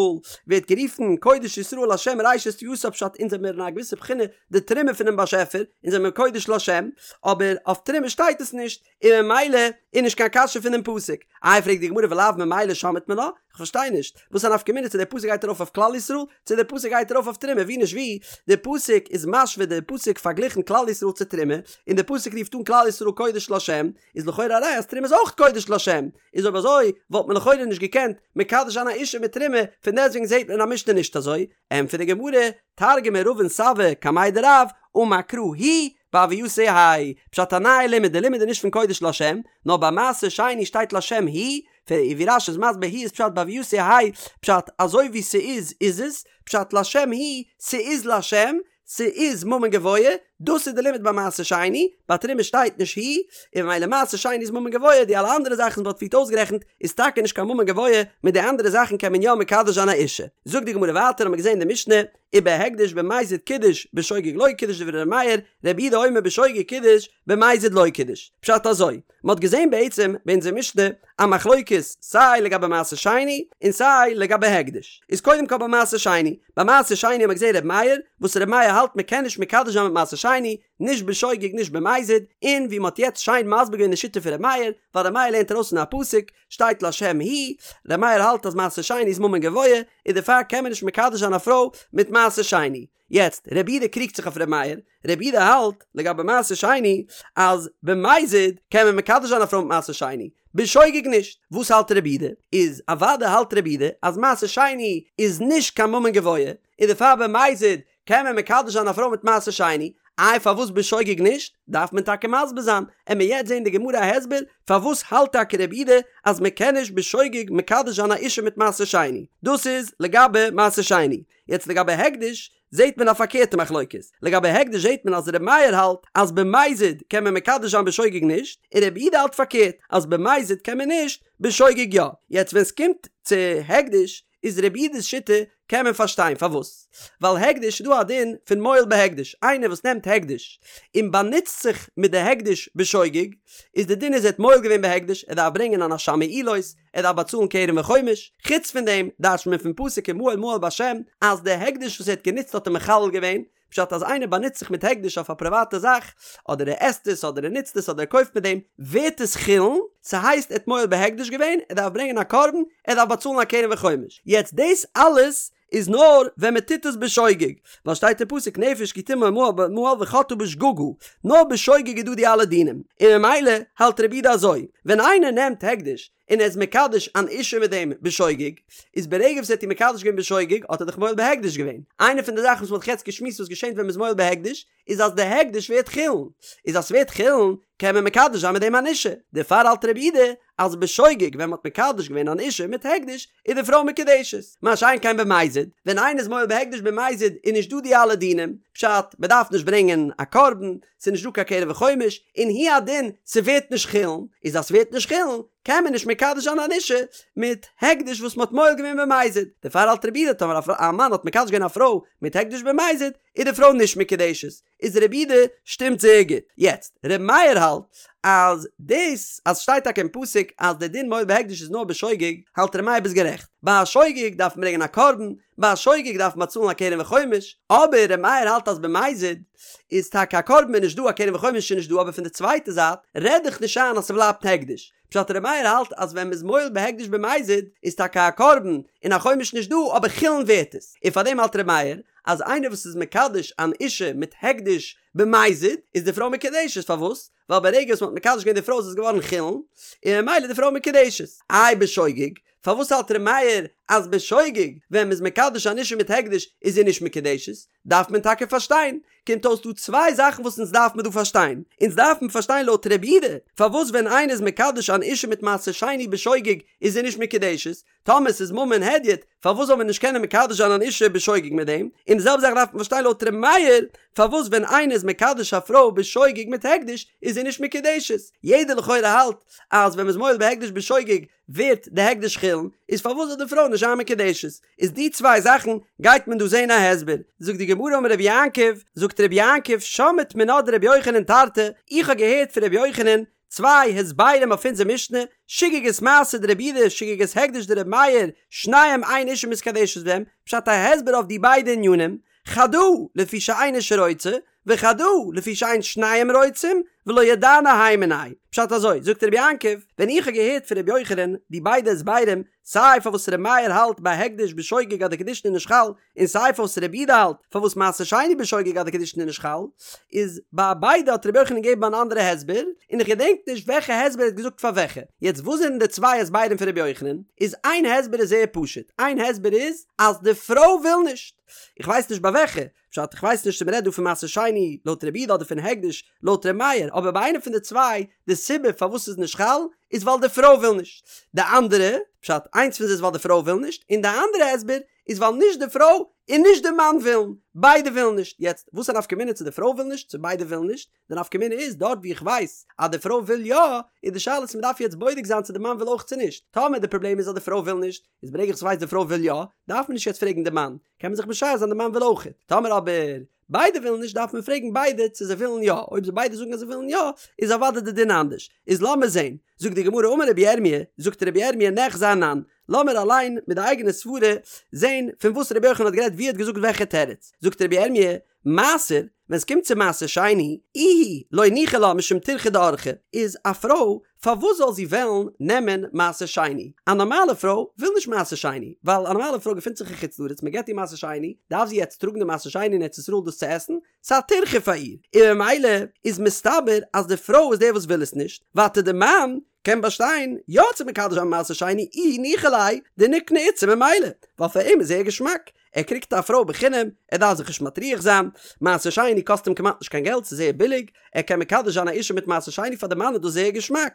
ווערט גערופן קודש ישראל לשם ראשית תבואתה פשט אונז זעמיר אין א געוויסע בחינה די תרומה פונעם באשעפער, אונז זעמיר קודש לשם, אבער אויף תרומה שטייט עס נישט, און ממילא איז נישט קיין קשיא פונעם פסוק. איי פרעגט די גמרא ולאו ממילא שמעת מינה? כ'פארשטיי נישט, וואס א נפקא מינה צו דער פסוק גייט ארויף אויף כלל ישראל, צו דער פסוק גייט ארויף אויף תרומה, ווי נישט ווי, דער פסוק איז משווה דער פסוק פארגליכן כלל ישראל צו תרומה, און דער פסוק רופט אן כלל ישראל קודש לשם, איז לכאורה א ראיה אז תרומה איז אויך קודש לשם, איז אויב אזוי וואלט מען לכאורה נישט געקענט מקדש זיין א אישה מיט תרומה, פון דעסטוועגן זעט מען אין א משנה נישט אזוי, ענטפערט די גמרא, תרגמא רבין סבא קמיה דרב, אמר קרא הוא בהוייתו יהא פשט א נייע לימוד, די לימוד איז נישט פון קודש לשם, נאר ביי מעשר שני שטייט לשם הוא, ווי רש"י איז מסביר הוא איז פשט בהוייתו יהא פשט אזוי ווי ס'איז איז עס, פשט לשם הוא, ס'איז לשם, ס'איז ממון גבוה, דאס איז די לימוד ביי מעשר שני, ביי תרומה שטייט נישט הוא, און ממילא מעשר שני איז ממון גבוה, די אלע אנדערע זאכן וואס מ'האט פריערט אויסגערעכנט איז טאקע נישט קיין ממון גבוה, מיט די אנדערע זאכן קען מען יא מקדש זיין א אישה. זאגט די גמרא ווייטער האמיר געזען אין די משנה, ובהקדש במזיד קידש בשוגג לא קידש דברי ר' מאיר, רבי יהודה אומר בשוגג קידש במזיד לא קידש. פשט אזוי, מ'האט געזען בעצם ביי אונזער משנה א מחלוקת סיי לגבי מעשר שני און סיי לגבי הקדש. איז קודם כל ביי מעשר שני, ביי מעשר שני האט מען געזען ר' מאיר, וואס ר' מאיר האלט מ'קען נישט מקדש זיין מיט מעשר שני, נישט בשוגג נישט במזיד, און ווי מ'האט יעצט שיין מסביר געווען די שיטה פון ר' מאיר, ווייל ר' מאיר לערנט ארויס פון א פסוק, שטייט לשם הוא, ר' מאיר האלט אז מעשר שני איז ממון גבוה, און דערפאר קען מען נישט מקדש זיין א פרוי מיט מעשר שני. יעצט, רבי יהודה קריגט זיך אויף רבי מאיר, רבי יהודה האלט, לגבי מעשר שני, אז במזיד קען מען מקדש זיין א פרוי מיט מעשר שני, בשוגג נישט. וואס האלט רבי יהודה? איז אוודאי האלט רבי יהודה אז מעשר שני איז נישט קיין ממון גבוה, און דערפאר במזיד קען מען מקדש זיין א פרוי מיט מעשר שני, איי פארוואס בשוגג נישט? דארף מען טאקע מסביר זיין, עמיר יעצט זעהן די גמרא א הסבר פארוואס האלט טאקע רבי יהודה אז מען קען נישט בשוגג מקדש זיין א אישה מיט מעשר שני, דאס איז לגבי מעשר שני, יעצט לגבי הקדש זעהט מען א פארקערטע מחלוקת, לגבי הקדש זעהט מען אז רבי מאיר האלט אז במזיד קען מען מקדש זיין בשוגג נישט, און רבי יהודה האלט פארקערט אז במזיד קען מען נישט, בשוגג יא, יעצט ווען סקומט צו הקדש איז רבי יהודה'ס שיטה קען מען פארשטיין פארוואס, ווייל הקדש איז דא א דין פון מועל בהקדש, איינער וואס נעמט הקדש און באנוצט זיך מיט די הקדש בשוגג, איז די דין איז ער האט מועל געווען בהקדש, ער דארף ברענגען אן אשם מעילות, ער דארף באצאלן קרן וחומש, חוץ פון דעם דרש'נט מען פון פסוק ומעל מעל בהשם אז די הקדש וואס ער האט גענוצט האט ער מחלל געווען, פשט אז איינער באנוצט זיך מיט הקדש אויף א פריוואטע זאך, אדער ער עסט עס אדער ער נוצט עס אדער ער קויפט מיט דעם, ווערט עס חולין, ס'הייסט ער האט מועל בהקדש געווען, ער דארף ברענגען א קרבן, ער דארף באצאלן א קרן וחומש. יעצט דאס אלעס איז נאר ווען מען טוט עס בשוגג, ווייל שטייט אין פסוק נפש כי תמעול מעל וחטאה בשגגה, נאר בשוגג איז דא די אלע דינים, און ממילא האלט רבי יהודה אזוי, ווען איינער נעמט הקדש און ער איז מקדש אן אישה מיט דעם בשוגג, איז ברגע וואס ער האט איר מקדש געווען בשוגג האט ער דאך מועל בהקדש געווען. איינע פון די זאכן וואס מ'האט יעצט געשמועסט וואס געשענט ווען מ'איז מועל בהקדש, איז אז די הקדש ווערט חולין. איז אז ס'ווערט חולין קען מען מקדש זיין מיט דעם אן אישה. דערפאר האלט רבי יהודה אז בשוגג ווען מ'האט מקדש געווען אן אישה מיט הקדש איז די פרוי מקודשת. מה שאין כן במזיד, ווען איינער איז מועל בהקדש במזיד איז נישט דא די אלע דינים, פשט, מ'דארף נישט ברענגען א קרבן, ס'איז נישט דא קיין קרן וחומש, און הוא הדין ס'ווערט נישט חולין, איז אז ס'ווערט נישט חולין קען מען נישט מקדש זיין אן אישה מיט הקדש וואס מ'האט מועל געווען במזיד, דערפאר האלט רבי יהודה טאמער א מאן האט מקדש געווען א פרוי מיט הקדש במזיד איז די פרוי נישט מקודשת, איז רבי יהודה שטימט זייער גוט. יעצט, ר' מאיר האלט אז דאס אז ס'שטייט טאקע אין פסוק אז די דין מועל בהקדש איז נאר בשוגג, האלט ר' מאיר ביסט גערעכט, ביי א שוגג דארף מען ברענגען א קרבן, ביי א שוגג דארף מען באצאלן א קרן וחומש, אבער ר' מאיר האלט אז במזיד איז טאקע א קרבן איז נישט דא א קרן וחומש איז נישט דא אבער פון די צווייטע זייט רעד דיך נישט איין אז ס'בלייבט הקדש, פשט ר' מאיר האלט אז ווען מ'איז מועל בהקדש במזיד איז טאקע א קרבן און א חומש נישט דא אבער חולין ווערט עס, און פארדעם האלט ר' מאיר אז איינער וואס איז מקדש אן אישה מיט הקדש במזיד איז די פרוי מקודשת, פארוואס? ווייל ברגע וואס מ'האט מקדש געווען די פרוי איז עס געווארן חולין, און ממילא איז די פרוי מקודשת. איי בשוגג? פארוואס האלט ר' מאיר אז בשוגג ווען מ'איז מקדש אן אישה מיט הקדש איז זי נישט מקודשת? דארף מען טאקע פארשטיין. קומט אויס דא צוויי זאכן וואס אונז דארף מען דא פארשטיין. אונז דארף מען פארשטיין לויט רבי יהודה פארוואס ווען איינער איז מקדש אן אישה מיט מעשר שני בשוגג איז זי נישט מקודשת, טאמער ס'איז ממון הדיוט, פארוואס זאל מען נישט קענען מקדש זיין אן אישה בשוגג מיט דעם? און די זעלבע זאך דארף מען פארשטיין לויט ר' מאיר, פארוואס ווען איינער איז מקדש א פרוי בשוגג מיט הקדש איז זי נישט מקודשת? יעדער לכאורה האלט אז ווען מ'איז מועל בהקדש בשוגג ווערט די הקדש חולין, איז פארוואס זאל די פרוי נישט זיין מקודשת? איז די צוויי זאכן גייט מען דא זעהן א הסבר. זאגט די גמרא אמר רבי יעקב, זאגט רבי יעקב שמעית מינה דרבי יוחנן תרתי, איך האב געהערט פון רבי יוחנן צוויי הסברים אויף אונזער משנה, שגגת מעשר דרבי יהודה שגגת הקדש דרבי מאיר, שניהם אין אישה מתקדשת בהם, פשט א הסבר אויף די ביידע ענינים, חדא לפי שאין אישה רוצה, וחדא לפי שאין שניהם רוצים, ולא ידענא הי מינייהו. פשט אזוי, זאגט רבי יעקב, ווען איך האב געהערט פון רבי יוחנן די ביידע הסברים, סיי פארוואס רבי מאיר האלט ביי הקדש בשוגג אז די קידושין איז נישט חל, און סיי פארוואס רבי יהודה האלט פארוואס מעשר שני בשוגג אז די קידושין איז נישט חל, איז ביי ביידע האט רבי יוחנן געגעבן אן אנדערע הסבר, און איך געדענק נישט וועלכע הסבר ער האט געזאגט פאר וועלכע. יעצט וואס זענען די צוויי הסברים פון רבי יוחנן? איז איין הסבר איז זייער פשוט, איין הסבר איז אז די פרוי וויל נישט. איך ווייס נישט ביי וועלכע, פשט איך ווייס נישט צו מ'רעדט דא פון מעשר שני לויט רבי יהודה אדער פון הקדש לויט ר' מאיר, אבער ביי איינע פון די צוויי די סיבה פארוואס ס'איז נישט חל איז ווייל די פרוי וויל נישט. די אנדערע, פשט איינס פון זיי איז ווייל די פרוי וויל נישט, און די אנדערע הסבר איז ווייל נישט די פרוי און נישט די מאן ווילן, ביידע ווילן נישט, יעצט וואס א נפקא מינה צו די פרוי וויל נישט צו ביידע ווילן נישט, די נפקא מינה איז דארט ווי איך ווייס אז די פרוי וויל יא, איז די שאלה צו מ'דארף יעצט בודק זיין צו די מאן וויל אויך צו נישט, טאמער די פראבלעם איז אז די פרוי וויל נישט, איז ברגע איך ווייס די פרוי וויל יא, דארף מען נישט יעצט פרעגן די מאן, קען מען זיך משער זיין די מאן וויל אויך, טאמער אבער ביידע ווילן נישט דארף מען פרעגן ביידע צו זיי ווילן יא, אויב זיי ביידע זאגן אז זיי ווילן יא, איז אוודאי די דין אנדערש, איז לאמיר זען, זאגט די גמרא אמר רבי ירמי', זאגט רבי ירמי' ניחזי אנן, לאמיר אליין מיט די אייגענע סברה זען פון וואס רבי יוחנן האט גערעדט ווי ער האט געזאגט וועלכע תירוץ, זאגט רבי ירמי', מעשר, ווען ס'קומט צו מעשר שני, איהי לא ניחא לה משום טירחא דאורחא, איז א פרוי פארוואס זאל זי וועלן נעמען מעשר שני? א נארמאלע פרוי וויל נישט מעשר שני, ווייל א נארמאלע פרוי געפינט זיך אין חוץ לארץ, מען געבט איר מעשר שני, דארף זי יעצט טראגן די מעשר שני אין ארץ ישראל דאס צו עסן? ס'איז א טירחא פאר איר, און ממילא איז מסתבר אז די פרוי איז דער וואס וויל עס נישט, ווייטער די מאן קען באשטיין יא צו מקדש זיין מעשר שני איהו ניחא ליה דניקני איתתא ממילא, ווייל פאר אים איז זייער געשמאק, ער קריגט א פרוי בחינם, ער דארף זיך נישט מטריח זיין, מעשר שני קאסט אים כמעט נישט קיין געלט, ס'איז זייער ביליג, ער קען מקדש זיין א אישה מיט מעשר שני פאר די מאן איז דאס זייער געשמאק,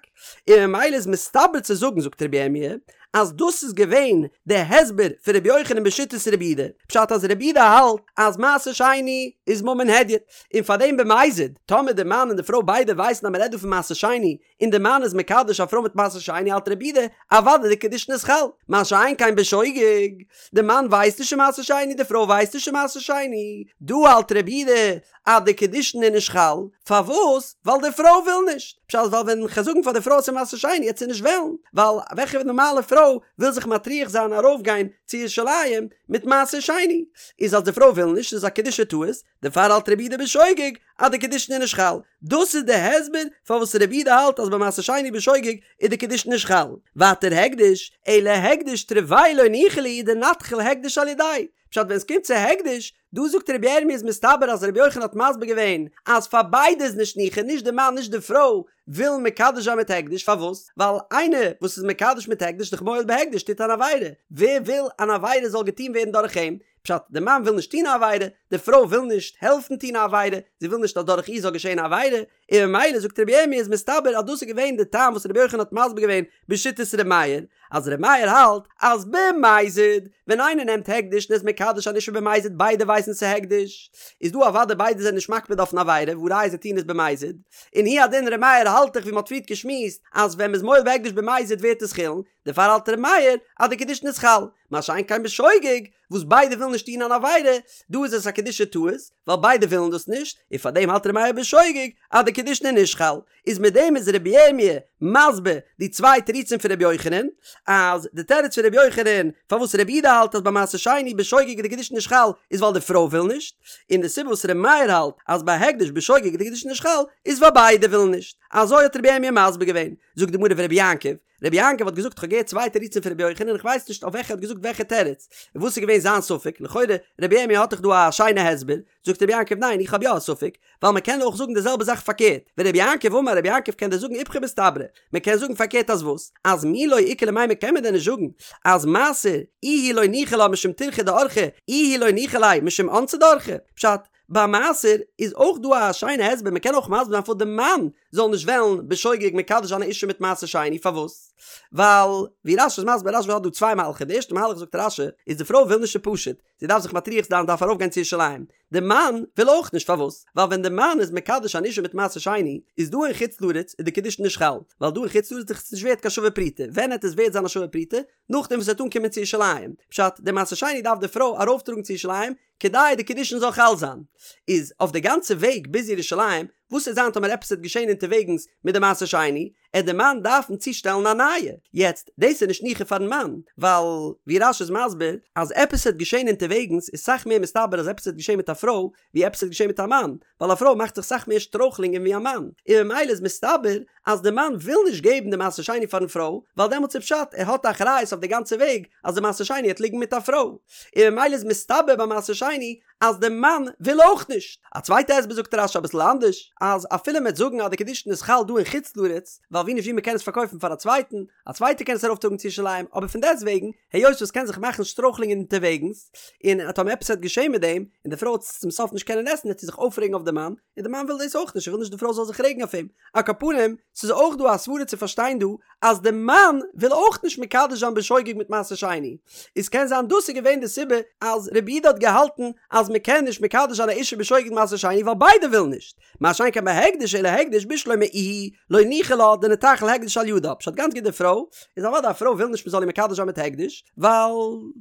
און ממילא איז מסתבר צו זאגן זאגט רבי ירמי' אז דאס איז געווען די הסבר פון רבי יוחנן בשיטת רבי יהודה, פשט אז רבי יהודה האלט אז מעשר שני איז ממון הדיוט, און פארדעם במזיד, טאמער די מאן און די פרוי ביידע ווייסן אז מ'רעדט דא פון מעשר שני, און די מאן איז מקדש א פרוי מיט מעשר שני האלט רבי יהודה אוודאי די קידושין איז חל, מה שאין כן בשוגג, די מאן ווייסט נישט ס'איז מעשר שני די פרוי ווייסט נישט ס'איז מעשר שני, דא האלט רבי יהודה אז די קידושין איז נישט חל, פארוואס? ווייל די פרוי וויל נישט, פשט ווייל ווען כ'גיי זאגן פאר די פרוי אז ס'איז מעשר שני העט זי נישט וועלן, ווייל וועלכע נארמאלע פרוי וויל זיך מטריח זיין ארויפגיין צו ירושלים מיט מעשר שני, איז אז די פרוי וויל נישט איז א קידושי טעות, דערפאר האלט רבי יהודה בשוגג אז די קידושין איז נישט חל, דאס איז די הסבר פארוואס רבי יהודה האלט אז ביי מעשר שני בשוגג איז די קידושין נישט חל. ווייטער הקדש, אלא הקדש תרוייהו לא ניחא להו דנתחיל הקדש על ידייהו, פשט ווען עס קומט צו הקדש, דא זאגט רבי ירמי' איז מסתבר אז רבי יוחנן האט מסביר געווען אז פאר ביידע איז נישט ניחא נישט די מאן נישט די פרוי ווילן מקדש זיין מיט הקדש פארוואס? ווייל איינער וואס איז מקדש מיט הקדש דאך מועל בהקדש טוט אן עבירה, ווער וויל אן עבירה זאל געטון ווערן דורך אים? פשט, די מאן וויל נישט טון א עבירה, די פרוי וויל נישט העלפן טון א עבירה, זי וויל נישט אז דורך איר זאל געשען א עבירה, און ממילא זאגט רבי ירמי' איז מסתבר אז דאס איז געווען די טעם וואס רבי יוחנן האט מסביר געווען בשיטת רבי מאיר, אז רבי מאיר האלט אז במזיד ווען איינער נעמט הקדש און איז מקדש אן אישה במזיד ביידע ווייסן ס'איז הקדש, איז דא אוודאי ביידע זענען נישט מקפיד אויפן עבירה והא ראיה זיי טוען עס במזיד, און הוא הדין רבי מאיר האלט דאך ווי מ'האט פריערט געשמועסט אז ווען מ'איז מועל בהקדש במזיד ווערט עס חולין, דערפאר האלט ר' מאיר אז די קידושין איז חל, מה שאין כן בשוגג, וואס ביידע ווילן נישט טון אן עבירה, דא איז עס א קידושי טעות, ווייל ביידע ווילן דאס נישט, און פארדעם האלט ר' מאיר בשוגג אז די קידושין איז נישט חל. איז מיט דעם איז רבי ירמי' מסביר די צוויי תירוצים פון רבי יוחנן, אז די תירוץ פון רבי יוחנן פארוואס רבי יהודה האלט אז ביי מעשר שני בשוגג איז די קידושין נישט חל איז ווייל די פרוי וויל נישט, און די סיבה וואס רבי מאיר האלט אז ביי הקדש בשוגג איז די קידושין נישט חל איז ווייל ביידע ווילן נישט. אזוי האט רבי ירמי' מסביר געווען. זאגט די גמרא ורבי יעקב, רבי יעקב האט געזאגט כ'האב געהערט צוויי תירוצים פון רבי יוחנן און כ'ווייס נישט אויף וועלכע ער האט געזאגט וועלכע תירוץ, און וואס איז געווען זיין ספק, לכאורה רבי ירמי' האט דאך דא א שיינע הסבר, זאגט רבי יעקב ניין איך האב יא א ספק, ווייל מען קען אויך זאגן די זעלבע זאך פארקערט, ורבי יעקב אמר רבי יעקב קען דיר זאגן איפכא מסתברא, מען קען זאגן פארקערט אז וואס? אז מי לא איכא למימר קען מען דען נישט זאגן אז מעשר איהו לא ניחא לה משום טירחא דאורחא איהו לא ניחא ליה משום אונסא דאורחא, פשט, ביי מעשר איז אויך דא א שיינע הסבר, מען קען אויך מסביר זיין פארוואס די מאן זאל נישט וועלן בשוגג מקדש זיין א אישה מיט מעשר שני, פארוואס? ווייל ווי רש"י איז מסביר, רש"י האט דא צוויי מהלכים, די ערשטע מהלך זאגט רש"י איז די פרוי וויל נישט איז פשוט, זי דארף זיך מטריח זיין דארף ארויף גיין צו ירושלים, די מאן וויל אויך נישט פארוואס? ווייל ווען די מאן איז מקדש אן אישה מיט מעשר שני איז דא אין חוץ לארץ איז די קידושין נישט חל, ווייל דא אין חוץ לארץ איז עס נישט ווערט קיין שווה פרוטה, ווען העט עס ווערט זיין א שווה פרוטה? נאכדעם וואס עס וועט אנקומען צו ירושלים, פשט, די מעשר שני דארף די פרוי ארויפטראגן צו ירושלים, כדי די קידושין זאל חל זיין, איז אויף די גאנצע וועג ביז ירושלים, וואס עט זיין טאמער עפעס וועט געשען אונטערוועגנס מיט די מעשר שני, עט די מאן דארפן צושטעלן א נייע, יעצט דאס איז נישט ניחא פארן מאן, ווייל ווי רש"י איז מסביר אז עפעס וועט געשען אונטערוועגנס איז סאך מער מסתבר אז עפעס וועט געשען מיט א פרוי ווי עפעס וועט געשען מיט א מאן, ווייל א פרוי מאכט זיך סאך מער שטרויכלינגען ווי א מאן, און ממילא איז מסתבר אז די מאן וויל נישט געבן די מעשר שני פארן פרוי, ווייל דעמאלטס איז פשט ער האט א אחריות אויף די גאנצע וועג אז די מעשר שני העט ליגן מיט א פרוי, און ממילא איז מסתבר ביי מעשר שני אז די מאן וויל אויך נישט. א צווייטע הסבר זאגט רש"י אביסל אנדערש, אז אפילו מ'עט זאגן אז די קידושין איז חל דא אין חוץ לארץ, ווייל ווי נישט ווי מ'קען עס פארקויפן פאר א צווייטן, א צווייטער קען עס ארויפטראגן צו ירושלים, אבער פון דעסטוועגן, היות וואס קען זיך מאכן שטרויכלינגען אונטערוועגנס, און טאמער עפעס וועט געשען מיט דעם, און די פרוי וועט עס צום סוף נישט קענען עסן וועט זי זיך אויפרעגן אויף די מאן, און די מאן וויל דאס אויך נישט, ער וויל נישט די פרוי זאל זיך רעגן אויף אים. על כל פנים, ס'איז אויך דא א סברה צו פארשטיין דא, אז די מאן וויל אויך נישט מקדש זיין בשוגג מיט מעשר שני. איז קען זיין דאס איז געווען די סיבה אז רבי יהודה האט געהאלטן אז מ'קען נישט מקדש זיין א אישה בשוגג מיט מעשר שני ווייל ביידע ווילן נישט. מה שאין כן בהקדש אלא הקדש בשלמא איהי לא ניחא לה דניתחיל הקדש על ידה פשט גאנץ גוט די פרוי איז אוודאי א פרוי וויל נישט מ'זאל איר מקדש זיין מיט הקדש ווייל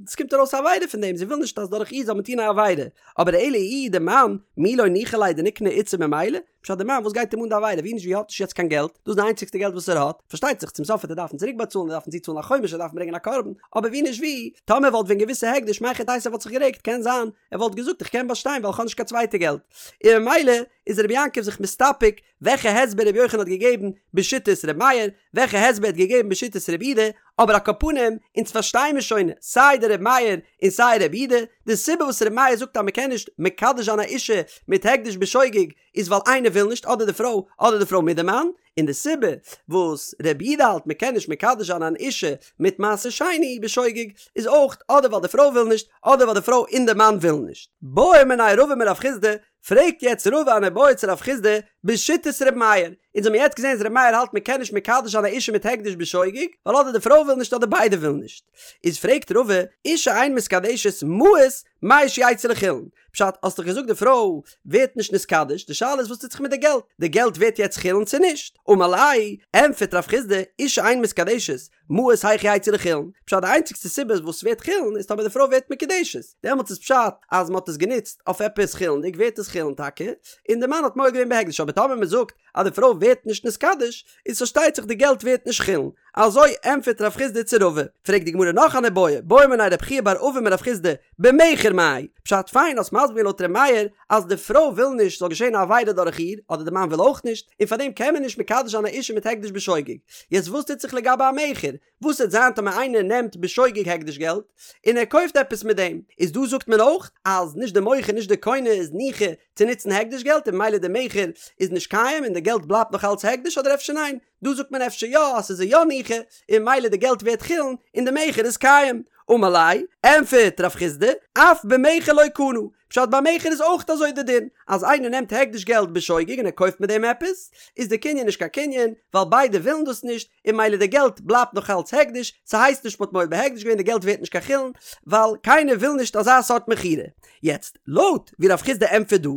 ס'קומט ארויס א עבירה פון דעם זי וויל נישט אז דורך איר זאל מען טון א עבירה אבער אלא איהו די מאן מי לא ניחא ליה דניקני איתתא ממילא פשט די מאן וואס גייט אים אן די עבירה ווי נישט ווי האט נישט יעצט קיין געלט דאס איז די איינציגסטע געלט וואס ער האט פארשטייט זיך צום סוף וועט ער דארפן צוריק באצאלן ער דארפן צוצאלן א חומש ער דארף ברענגען א קרבן אבער ווי נישט ווי טאמער וואלט ווען געוואוסט ס'איז הקדש מהיכי תיתי ער וואלט זיך גערעגט קען זיין ער וואלט געזאגט. זאגט איך קען באשטיין ווייל איך האב נישט קיין צווייטע געלט, און ממילא איז רבי יעקב זיך מסתפק וועלכע הסבר רבי יוחנן האט געגעבן בשיטת רבי מאיר, וועלכע הסבר ער האט געגעבן בשיטת רבי יהודה, אבער על כל פנים, אונז פארשטיי מיר שוין סיי די רבי מאיר און סיי רבי יהודה, די סיבה וואס רבי מאיר זאגט אז מען קען נישט מקדש זיין א אישה מיט הקדש בשוגג איז ווייל איינער וויל נישט אדער די פרוי אדער די פרוי מיט די מאן, און די סיבה וואס רבי יהודה האלט מען קען נישט מקדש זיין אן אישה מיט מעשר שני בשוגג איז אויך אדער ווייל די פרוי וויל נישט אדער ווייל די פרוי און די מאן ווילן נישט. בעא מיניה רבא מרב חסדא, פרעגט יעצט רבא אן איבעיא צו רב חסדא בשיטת ר' מאיר, אונז האבן יעצט געזען אז ר' מאיר האלט מען קען נישט מקדש זיין א אישה מיט הקדש בשוגג ווייל אדער די פרוי וויל נישט אדער ביידע ווילן נישט, איז פרעגט רבא, אישה אין מתקדשת מעות מהו שיצאו לחולין, פשט, האסט דאך געזאגט די פרוי ווערט נישט נתקדש, די שאלה איז וואס טוט זיך מיט די געלט, די געלט ווערט יעצט חולין צו נישט? אמר ליה, ענטפערט רב חסדא, אישה אין מתקדשת, מעות היאך יצאו לחולין, פשט די איינציגסטע סיבה וואס ס'ווערט חולין איז טאמער די פרוי ווערט מקודשת, דעמאלטס איז פשט אז מ'האט עס גענוצט אויף עפעס חולין'דיג ווערט עס חולין טאקע, און די מאן האט מועל געווען בהקדש, אבער טאמער מ'זאגט אז די פרוי ווערט נישט נתקדש, איז פארשטייט זיך די געלט ווערט נישט חולין. אזוי ענטפערט רב חסדא צו רבא. פרעגט די גמרא נאך אן איבעיא, בעא מיניה רב חייא בר אבין מרב חסדא, במכר מאי? פשט פיין האסט מסביר געווען לויט ר' מאיר אז די פרוי וויל נישט ס'זאל געשען א עבירה דורך איר, אדער די מאן וויל אויך נישט, און פארדעם קען מען נישט מקדש זיין א אישה מיט הקדש בשוגג. יעצט וואס טוט זיך לגבי א מכר? וואס וועט זיין טאמער איינער נעמט בשוגג הקדש געלט און ער קויפט עפעס מיט דעם? איז דא זאגט מען אויך אז נישט די מוכר נישט די קונה איז ניחא צו נוצן הקדש געלט און ממילא די מכר איז נישט קיים און די געלט בלייבט נאך אלץ הקדש אדער אפשר ניין? דא זאגט מען אפשר יא אז ס'איז יא ניחא און ממילא די געלט ווערט חולין און די מכר איז קיים. אמר ליה, ענפערט רב חסדא, אף במכר לא קנה, פשט ביי מכר איז אויך אזוי די דין, אז איינער נעמט הקדש געלט בשוגג און ער קויפט מיט דעם עפעס, איז די קנין נישט קיין קנין, ווייל ביידע ווילן דאס נישט, און ממילא די געלט בלייבט נאך אלץ הקדש, ס'הייסט נישט מ'האט מועל בהקדש געווען די געלט ווערט נישט קיין חולין, ווייל קיינער וויל נישט אזא סארט מכירה. יעצט, לויט ווי רב חסדא ענטפערט דא,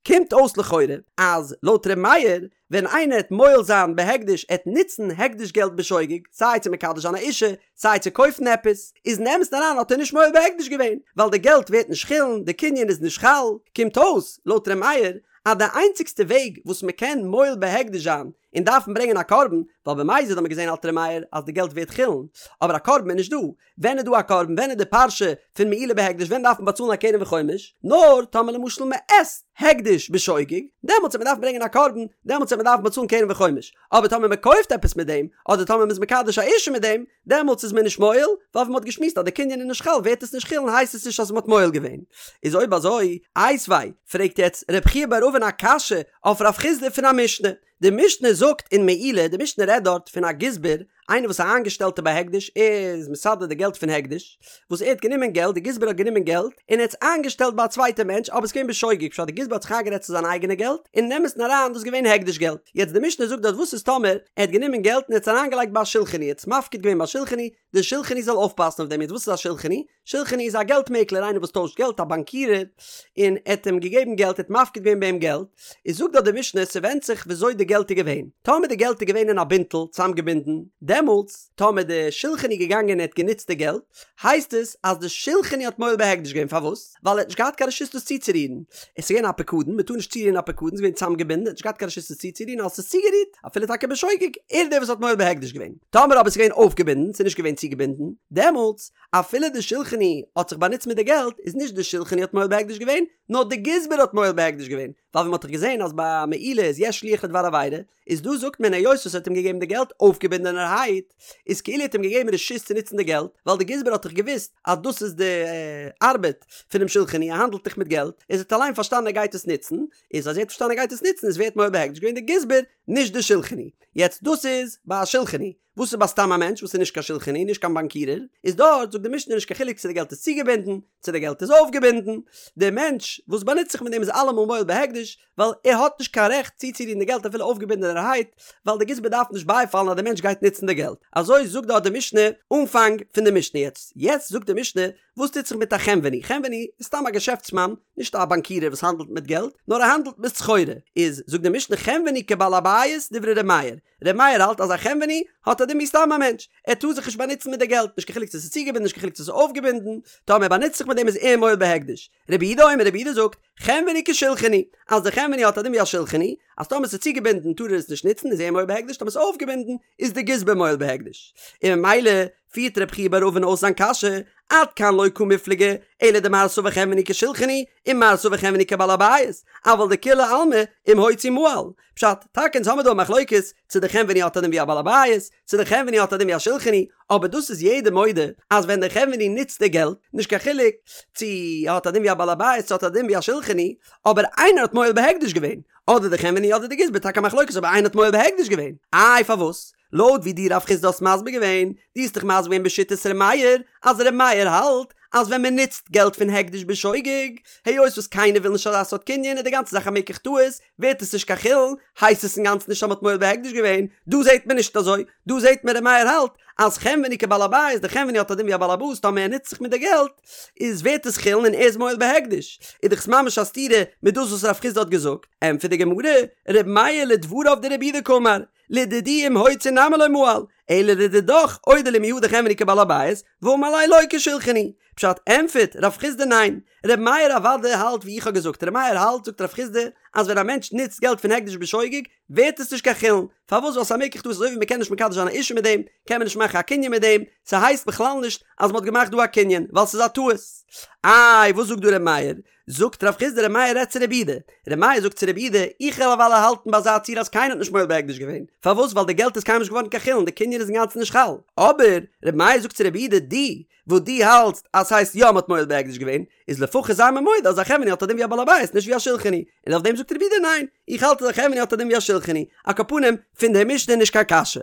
קומט אויס לכאורה אז לויט ר' מאיר, ווען איינער העט מועל זיין בהקדש ער העט נוצן הקדש געלט בשוגג, סיי צו מקדש זיין א אישה, סיי צו קויפן עפעס, איז אין אמת'ן אריין האט ער נישט מועל בהקדש געווען, ווייל די געלט ווערט נישט חולין, די קנין איז נישט חל, קומט אויס, לויט ר' מאיר, אז די איינציגסטע וועג וואס מען קען מועל בהקדש זיין און דארפן ברענגען א קרבן, ווייל במזיד האט מען געזען האלט ר' מאיר אז די געלט ווערט חולין, אבער א קרבן איז נישט דא, ווען איז דא א קרבן? ווען איז די פרשה פון מעילה בהקדש? ווען דארף מען באצאלן א קרן וחומש? נאר טאמער למשל מען עסט הקדש בשוגג, דעמאלטס וועט מען דארפן ברענגען א קרבן, דעמאלטס וועט מען דארפן באצאלן קרן וחומש. אבער טאמער מען קויפט עפעס מיט דעם, אדער טאמער מען איז מקדש א אישה מיט דעם, דעמאלטס איז מען נישט מועל, ווייל ווי מען האט געשמועסט אז די קנין איז נישט חל ווערט עס נישט חולין הייסט עס נישט אז מען האט מועל געווען. איז אויב אזוי, איתיביה, פרעגט יעצט רב חייא בר אבין א קשיא אויף רב חסדא פון א משנה. די משנה זאגט אין מעילה, די משנה רעדט דארט פון א גזבר, איינער וואס איז א איינגעשטעלטער ביי הקדש, ער איז מסדר די געלט פון הקדש, וואס ער האט גענומען געלט, די גזבר האט גענומען געלט, און ער האט עס איינגעשטעלט ביי א צווייטע מענטש, אבער עס איז געווען בשוגג, פשט די גזבר האט זיך איינגערעדט ס'איז זיין אייגענע געלט, און אין אמת'ן אריין דאס איז געווען הקדש געלט. יעצט די משנה זאגט דארט וואס איז טאמער ער האט גענומען געלט און ער האט עס אריינגעלייגט ביי א שולחני, ער האט עס מפקיד געווען ביי א שולחני, די שולחני זאל אויפפאסן אויף דעם, יעצט וואס איז א שולחני? שולחני איז א געלט מעקלער איינער וואס טוישט געלט א באנקירער און ער האט אים געגעבן געלט ער האט מפקיד געווען ביי אים געלט איז זאגט דארט די משנה ס'ווענדט זיך וויאזוי די געלט איז געווען טאמער די געלט איז געווען אין א בינטל צוזאמגעבינדן דעמאלטס טאמער די שולחני איז געגאנגען און ער האט גענוצט די געלט הייסט עס אז די שולחני האט מועל בהקדש געווען פארוואס ווייל ער האט נישט געהאט קיין רשות דאס צוצורירן עס איז געווען א פקדון מען טאר נישט צורירן א פקדון ס'איז געווען צוזאמגעבינדן ער האט נישט געהאט קיין רשות עס צוצורירן אז עס איז צוגערירט אפילו טאקע בשוגג ער איז דער וואס האט מועל בהקדש געווען טאמער אבער עס איז געווען אויפגעבינדן ס'איז נישט געווען צוגעבינדן דעמאלטס אפילו די שולחני האט זיך באנוצט מיט די געלט, איז נישט די שולחני האט מועל בהקדש געווען, נאר די גזבר האט מועל בהקדש געווען, ווייל ווי מ'האט דאך געזען אז ביי מעילה איז יש שליח לדבר עבירה, איז דא זאגט מען היות וואס ער האט אים געגעבן די געלט אויפגעבינדענערהייט, איז כאילו ער האט אים געגעבן רשות צו נוצן די געלט, ווייל די גזבר האט דאך געוואוסט אז דאס איז די ארבעט פונעם שולחני, ער האנדלט דאך מיט געלט, איז ער האט אליין פארשטאנען ער גייט עס נוצן, איז אז ער האט פארשטאנען ער גייט עס נוצן איז ווער האט מועל בהקדש געווען די גזבר, נישט די שולחני. יעצט דאס איז ביי א שולחני. וואס איז ביי סתם א מענטש וואס איז נישט קיין שולחני נישט קיין באנקירער, איז דארט זאגט די משנה נישט קיין חילוק צו די געלט איז צוגעבינדן צו די געלט איז אויפגעבינדן, דער מענטש וואס באנוצט זיך מיט דעם איז אלעמאל מועל בהקדש, ווייל ער האט נישט קיין רעכט צוצורירן די געלט אפילו אויפגעבינדענערהייט, ווייל די גזבר דארף נישט בייפאלן אז דער מענטש גייט נוצן די געלט. אזוי זאגט דארט די משנה אנפאנג פון די משנה. יעצט יעצט זאגט די משנה וואס טוט זיך מיט א חנווני? חנווני איז סתם א געשעפטסמאן, נישט א באנקירער וואס האנדלט מיט געלט, נאר ער האנדלט מיט סחורה. איז זאגט די משנה חנווני כבעל הבית דברי ר' מאיר, ר' מאיר האלט אז א חנווני האט א דין ווי סתם א מענטש, ער טאר זיך נישט באנוצן מיט די געלט, נישט קיין חילוק צו עס איז צוגעבינדן נישט קיין חילוק צו עס איז אויפגעבינדן, טאמער ער באנוצט זיך מיט דעם איז ער מועל בהקדש. רבי יהודה אומר רבי יהודה זאגט, חנווני כשולחני, אז די חנווני האט א דין ווי א שולחני, אז טאמער עס איז צוגעבינדן טאר ער עס נישט נוצן איז ער מועל בהקדש, טאמער עס איז אויפגעבינדן איז די גזבר מועל בהקדש. און ממילא. פירט רב חייא בר אבין אויס זיין קשיא, עד כאן לא קמיפלגי, אלא דמר סבר חנווני כשולחני, ומר סבר חנווני כבעל הבית, אבל דכולי עלמא אם הוציא מעל. פשט, טאקע אונז האמיר דא א מחלוקת צו די חנווני האט א דין ווי א בעל הבית, צו די חנווני האט א דין ווי א שולחני, אבער דאס איז יעדער מודה אז ווען די חנווני נוצט די געלט, נישט קיין חילוק צו ער האט א דין ווי א בעל הבית צו האט א דין ווי א שולחני, אבער איינער האט מועל בהקדש געווען, אדער די חנווני אדער די גזבר, טאקע א מחלוקת אבער איינער האט מועל בהקדש געווען, איי פארוואס? לויט ווי דו רב חסדא האסט מסביר געווען, דו האסט דאך מסביר געווען בשיטת ר' מאיר, אז ר' מאיר האלט אז ווען מען נוצט געלט פון הקדש בשוגג, היות וואס קיינער וויל נישט אזא סארט קנין איז די גאנצע זאך א מקח טעות, ווערט עס נישט קיין חולין, הייסט עס אינגאנצן נישט אז מען האט מועל בהקדש געווען, דא זעט מען נישט אזוי, דא זעט מען ר' מאיר האלט אז חנווני כבעל הבית, די חנווני האט א דין ווי א בעל הבית טאמער ער נוצט זיך מיט די געלט, איז ווערט עס חולין און ער איז מועל בהקדש, איז דאך עס ממש א סתירה מיט דאס וואס רב חסדא האט געזאגט, ענטפערט די גמרא, ר' מאיר לדבריו דרבי יהודה קאמר, לדידי אם הוציא נמי לא מעל, אלא לדידך אודי לי מיהא דחנווני כבעל הבית, ואמר ליה לא כשולחני. פשט, ענטפערט רב חסדא ניין, ר' מאיר אוודאי האלט ווי איך האב געזאגט, ר' מאיר האלט זאגט רב חסדא אז ווען א מענטש נוצט געלט פון הקדש בשוגג ווערט עס נישט קיין חולין, פארוואס ווייל ס'איז א מקח טעות אזוי ווי מ'קען נישט מקדש זיין א אישה מיט דעם, קען מען נישט מאכן א קנין מיט דעם, ס'הייסט בכלל נישט אז מ'האט געמאכט דא א קנין, ווייל ס'איז א טעות. איי וואס זאגט דא ר' מאיר? זאגט רב חסדא ר' מאיר רעדט צו רבי יהודה, ר' מאיר זאגט צו רבי יהודה, איך וועל אוודאי האלטן ביי אזא ציור אז קיינער האט נישט מועל בהקדש געווען, פארוואס ווייל די געלט איז קיינמאל נישט געווארן קיין חולין, די קנין איז אינגאנצן נישט חל, אבער ר' מאיר זאגט צו רבי יהודה, דו וואס דו האלטסט אז ס'הייסט יא מ'האט מועל בהקדש געווען, איז לפחות זיי מיר מודה אז א חנווני האט א דין ווי א בעל הבית נישט ווי א שולחני, און אויף דעם זאגט רבי יהודה ניין, איך האלט אז א חנווני האט א דין ווי א שולחני, על כל פנים, פון די משנה נישט קיין קשיא.